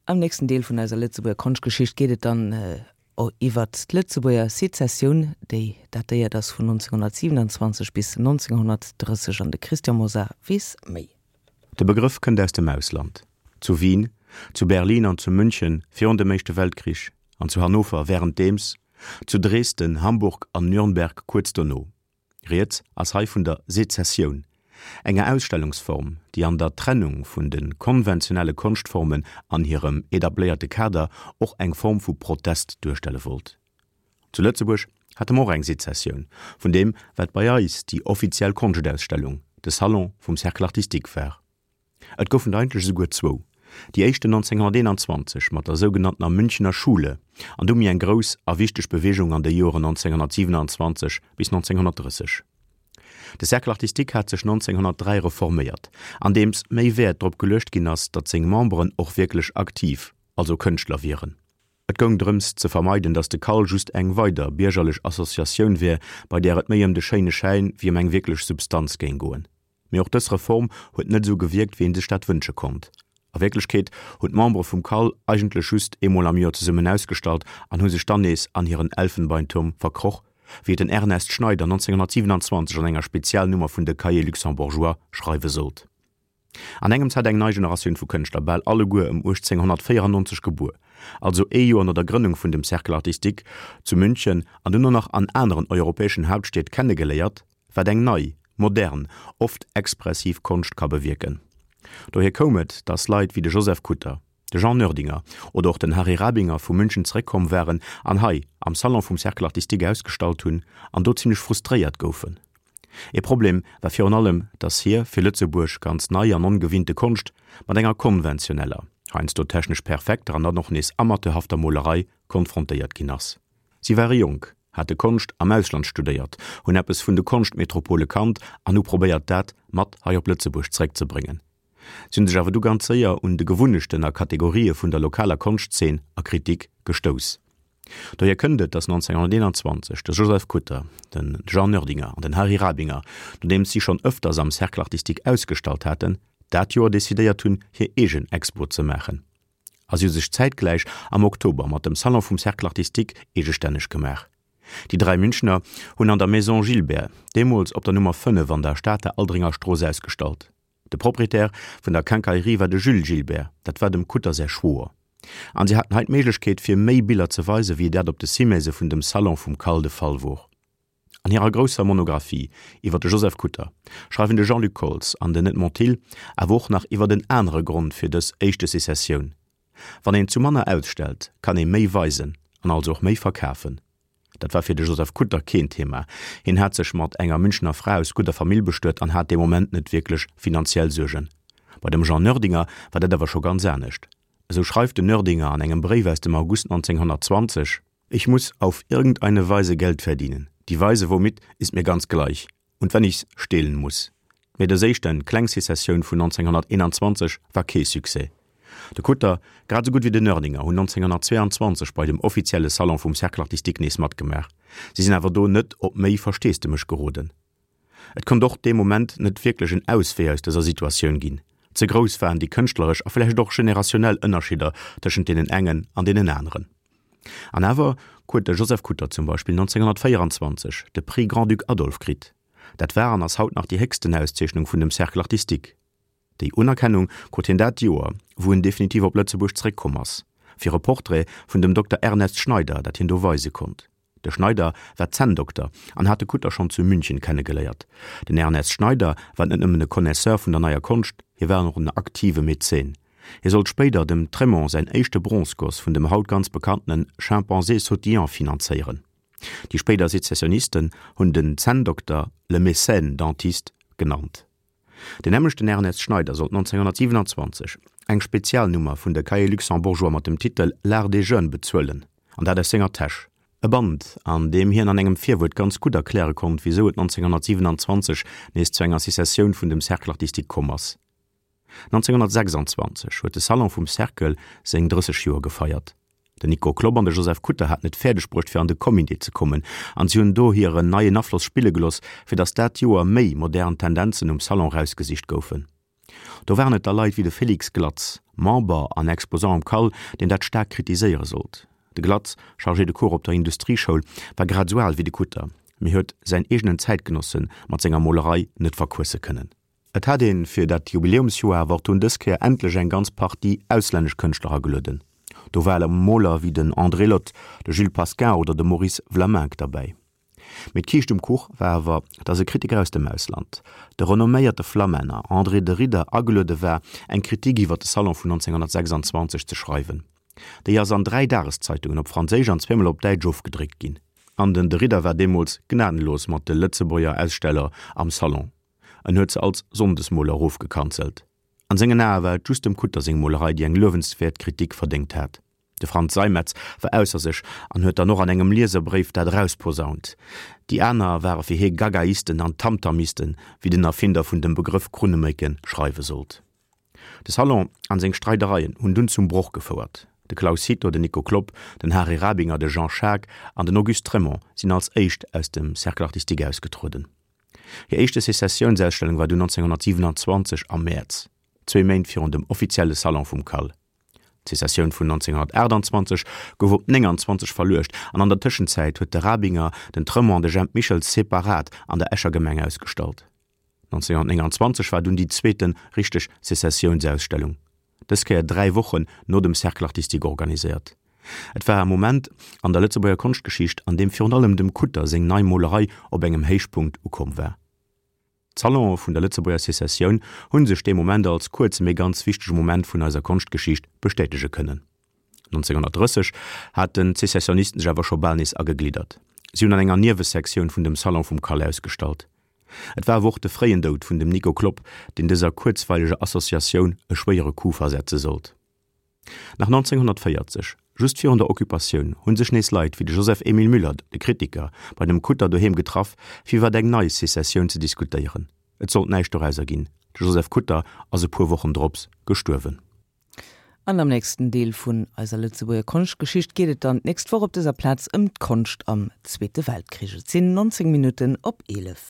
Am nächsten Deel vun eiser Lëtzebuerger Konschtgeschicht geet et dann iwwert d'Lëtzebuerger Sezessioun, déi datéiert ass vun 1927 bis 1930 an de Christian Mosar weess méi. De Begrëff kënnt aus dem Ausland. Zu Wien, zu Berlin an zu München virun dem Éischte Weltkrich an zu Hannover wärenddeems, zu Dresden, Hamburg an Nürnberg kuerz dono. Rieds ass hei vun der Sezessioun, enger Ausstellungsform, déi an der Trennung vun de konventionelle Konschtformen an hirem etabléierte Kader och eng Form vu Protest duerstelle wollt. Zu Lëtzebuerg hate mer och eng Sezessioun vun deem, wat bei eis déi offiziell Konschtausstellung, de Salon vum Cercle artistique war. Et goufen der eigentlech esouguer zwou, déi éischten 1921 mat der sougenanntener Münchener Schule an du méi eng grouss a wichteg Beweegung an de Joeren 1927 bis 1930. De Cercle artistique hat sech 1903 reforméiert, andeems méi Wäert drop geluecht ginn ass, datt seng Memberen och wierklech aktiv, also Kënschtler wieren. Et goung drëms ze vermeiden, datt de CAL just eng weider biergerlech Associatioun wär, bei där et méi ëm de schéine Schäin wéi ëm eng wierklech Substanz géing goen. Mee och dës Reform huet net esou gewierkt, wéi ee sech dat wënsche konnt. A Wierklechkeet hunn d'Membere vum CAL eigentlech just eemol am Joer zesummen ausgestallt an hu sech dann nees an hiren Elfenbeinturm verkroch, wéi et den Ernest Schneider 1927 an enger Spezialnummer vun de Cahiers luxembourgeois schreiwe sollt. An engems hat eng nei Generatioun vu Kënschtler, bal alleguer ëm 1894 gebuer, also ee Joer no der Grënnung vun dem Cercle artistique zu München an duerno nach an aneren europäeschen Hauptstied kennegeléiert, wat eng nei, modern, oft expressiv Konscht ka bewierken. Dohier koum et, datt Leit wéi de Joseph Kutter, de Jean Noerdinger oder och den Harry Rabinger vu München zeréckkomm waren an hei am Salon vum Cercle artistique ausgestallt hunn an do zimlech frustréiert goufen. Ee Problem war virun allem, datt hir fir Lëtzebuerg ganz nei an ongewinnte Konscht mat enger konventioneller, heiansdo technesch perfekter an dann och nees amateurhafter Molerei konfrontéiert ginn ass. Si ware jonk, hate Konscht am Ausland studéiert, hunn eppes vun de Konschtmetropole kannt an hu probéiert dat mat hei op Lëtzebuerg zeréckzebréngen. Si hunn sech awer du ganz séier un de Gewunnechten a Kategorië vun der lokaler Konschtzeen a Kritik gestouss. Dohier kënnt et, datt 1921 de Joseph Kutter, de Jean Noerdinger an den Harry Rabinger, nodeems si schonn ëfters am Cercle artistique ausgestallt haten, dat Joer decidéiert hunn, hir eegen Expo ze maachen. A si hu sech zäitgläich am Oktober mat dem Salon vum Cercle artistique eegestänneg gemaach. Déi dräi Münchener hunn an der Maison Gilbert, deemools op der Nummer 5 an der Stater Aldringer Strooss, ausgestallt. De Proprietär vun der Quincaillerie war de Jules Gilbert, dat war dem Kutter säi Schwoer. An si haten hei d'Méiglechkeet fir méi Biller ze weisen, wéi dat op de Cimaisë vun dem Salon vum Cal de Fall wor. An hirer grousser Monographie iwwer de Joseph Kutter schreiwen de Jean-Luc Koltz an den Edmond Thill awer och nach iwwer en anere Grond fir dës éischte Sezessioun, Wann een zu manner ausstellt, kann ee méi weisen an also och méi verkafen. Dat war fir de Joseph Kutter keen Thema. Hien hat sech mat enger Münchener Fra aus gudder Famill bestuet an hat dee Moment net wierklech finanziell Suergen. Bei dem Jean Noerdinger war dat awer scho ganz anescht. Esou schreift den Noerdinger an engem Bréif aus dem August 1920. Ich muss auf irgendeine Weise Geld verdienen. Die Weise womit ist mir ganz gleich. Und wenn ich's stehlen muss. Mee dës éischte kleng Sezessioun vun 1921 war kee Succès. De Kutter, grad esou gutt wéi den Noerdinger hunn 1922 bei dem offizielle Salon vum Cercle artistique nees matgemaach. Si sinn awer do net op méi Versteesdemech geroden. Et konnt och dee Moment net wierklech en Auswee aus dëser Situatioun ginn. Ze grouss waren déi kënschtleresch a vläicht och generationnell Ënnerschidder tëschent deenen engen an deenen aneren. An awer huet de Joseph Kutter zum Beispill 1924 de Prix Grand-Duc Adolphe kritt. Dat war an ass haut nach déi héchsten Auszeechnung vun dem Cercle artistique. Déi Unerkennung krut hien dat Joer, wou en definitiv op Lëtzebuerg zeréckkomm ass, fir e Portrait vun dem Dokter Ernest Schneider, dat hien do weise konnt. De Schneider war Zänndokter an hat de Kutter schonn zu München kennegeléiert. Den Ernest Schneider war net nëmmen e Connaisseur vun der neier Konscht, hie war och en aktive Mäzen. Hie sollt spéider dem Trémont säin éischte Bronzegoss vun dem haut ganz bekanntene Chimpanzé sautillant finanzéieren. Déi spéider Sezessionisten hunn den Zänndokter le mécène dentiste genannt. Den nämmlechten Ernest Schneider sollt 1927 eng Spezialnummer vun de Cahiers luxembourgeois mat dem Titel L'art des jeunes bezuelen, an dat aus senger Täsch. E Band, an deem hien an engem Virwuert ganz gutt erkläre konnt, wisou et 1927 nees zu enger Secessioun vun dem Cercle artistique komm ass. 1926 huet de Salon vum Cercle seng 30 Joer gefeiert. Den Nico Klopp an de Joseph Kutter haten et fäerdeg bruecht fir an de Comité ze kommen an si hunn do hiren neien Afloss spille geloss, fir datt dat Joer méi modern Tendenzen um Salon rausgesicht goufen. Do waren et da Leit wéi de Félix Glatz, Member an Exposant am CAL, deen dat staark kritiséiere sollt. De Glatz, Chargé de cours op der Industrieschoul, war grad esou al wéi de Kutter, mee huet säin eegenen Zäitgenosse mat senger Molerei net verquësse kënnen. Et hat een fir dat Jubiläumsjoer awer och dunn dës Kéier endlech eng ganz Partie auslännesch Kënschtler agelueden. Do ware Moler wéi den André Lhote, de Jules Pascin oder de Maurice Vlaminck derbäi. Mee d'Kiischt um Kuch war awer, datt e Kritiker aus dem Ausland, de renomméierte Flamänner André de Ridder, ageluede war, eng Kritik iwwer de Salon vun 1926 ze schreiwen. Déi ass an 3 Dageszeitungen op Franséisch an zweemol op Däitsch ofgedréckt ginn. An den de Ridder war deemools gnadenlos mat de Lëtzebuerger Aussteller am Salon. En huet se als Sonndesmoler erofgekanzelt. An sengen Ae war et just dem Kutter seng Molerei, déi eng luewenswäert Kritik verdéngt hat. De Frantz Seimetz war ausser sech an huet dann och an engem Lieserbréif dat erausposaunt. Déi aner ware fir hie Gagaisten an Tamtamisten, wéi den Erfinder vun dem Begrëff Krunnemécke schreiwe sollt. De Salon an seng Streidereien hunn dunn zum Broch gefouert. De Claus Cito, den Nico Klopp, den Hary Rabinger, de Jean Schaack an den Auguste Trémont sinn als éischt aus dem Cercle artistique ausgetrueden. Hir éischte Sezessiounsausstellung war dunn 1927 am Mäerz, zwee Méint virun dem offizielle Salon vum CAL. D'Sezessioun vun 1928 gouf op 29 verluecht an an der Tëschenzäit huet de Rabinger, den Tremont an de Jemp Michels separat an der Escher Gemeng ausgestallt. 1929 war dunn déi zweete richteg Sezessiounsausstellung, dës Kéier dräi Wochen no dem Cercle artistique organiséiert. Et war e Moment an der Lëtzebuerger Konschtgeschicht, an deem virun allem dem Kutter seng nei Molerei op engem Héichpunkt ukomm war. D'Salonë vun der Lëtzebuerger Sezessioun hu sech dee Moment als kuerze mee ganz wichtege Moment vun eiser Konschtgeschicht bestätege kënnen. 1930 haten d'Sezessionisten sech awer scho bal nees agegliddert. Si hunn an enger Niewesektioun vun dem Salon vum Cal ausgestallt. Et war awer och de fréien Doud vun dem Nico Klopp, deen dëser kuerzweileger Associatioun e schwéiere Coup versetze sollt. Nach 1940, just virun der Occupatioun, hu sech nees Leit wéi de Joseph Emile Müller, de Kritiker, bei dem Kutter doheem getraff, fir iwwer eng nei Sezessioun ze diskutéieren. Et sollt näischt dorauser ginn, de Joseph Kutter ass e puer Wochen drops gestuerwen. An am nächsten Deel vun eiser Lëtzebuerger Konschtgeschicht geet et dann d'nächst Woch op dëser Plaz ëm d'Konscht am Zweete Weltkrich. Et sinn 19 Minutten op 11.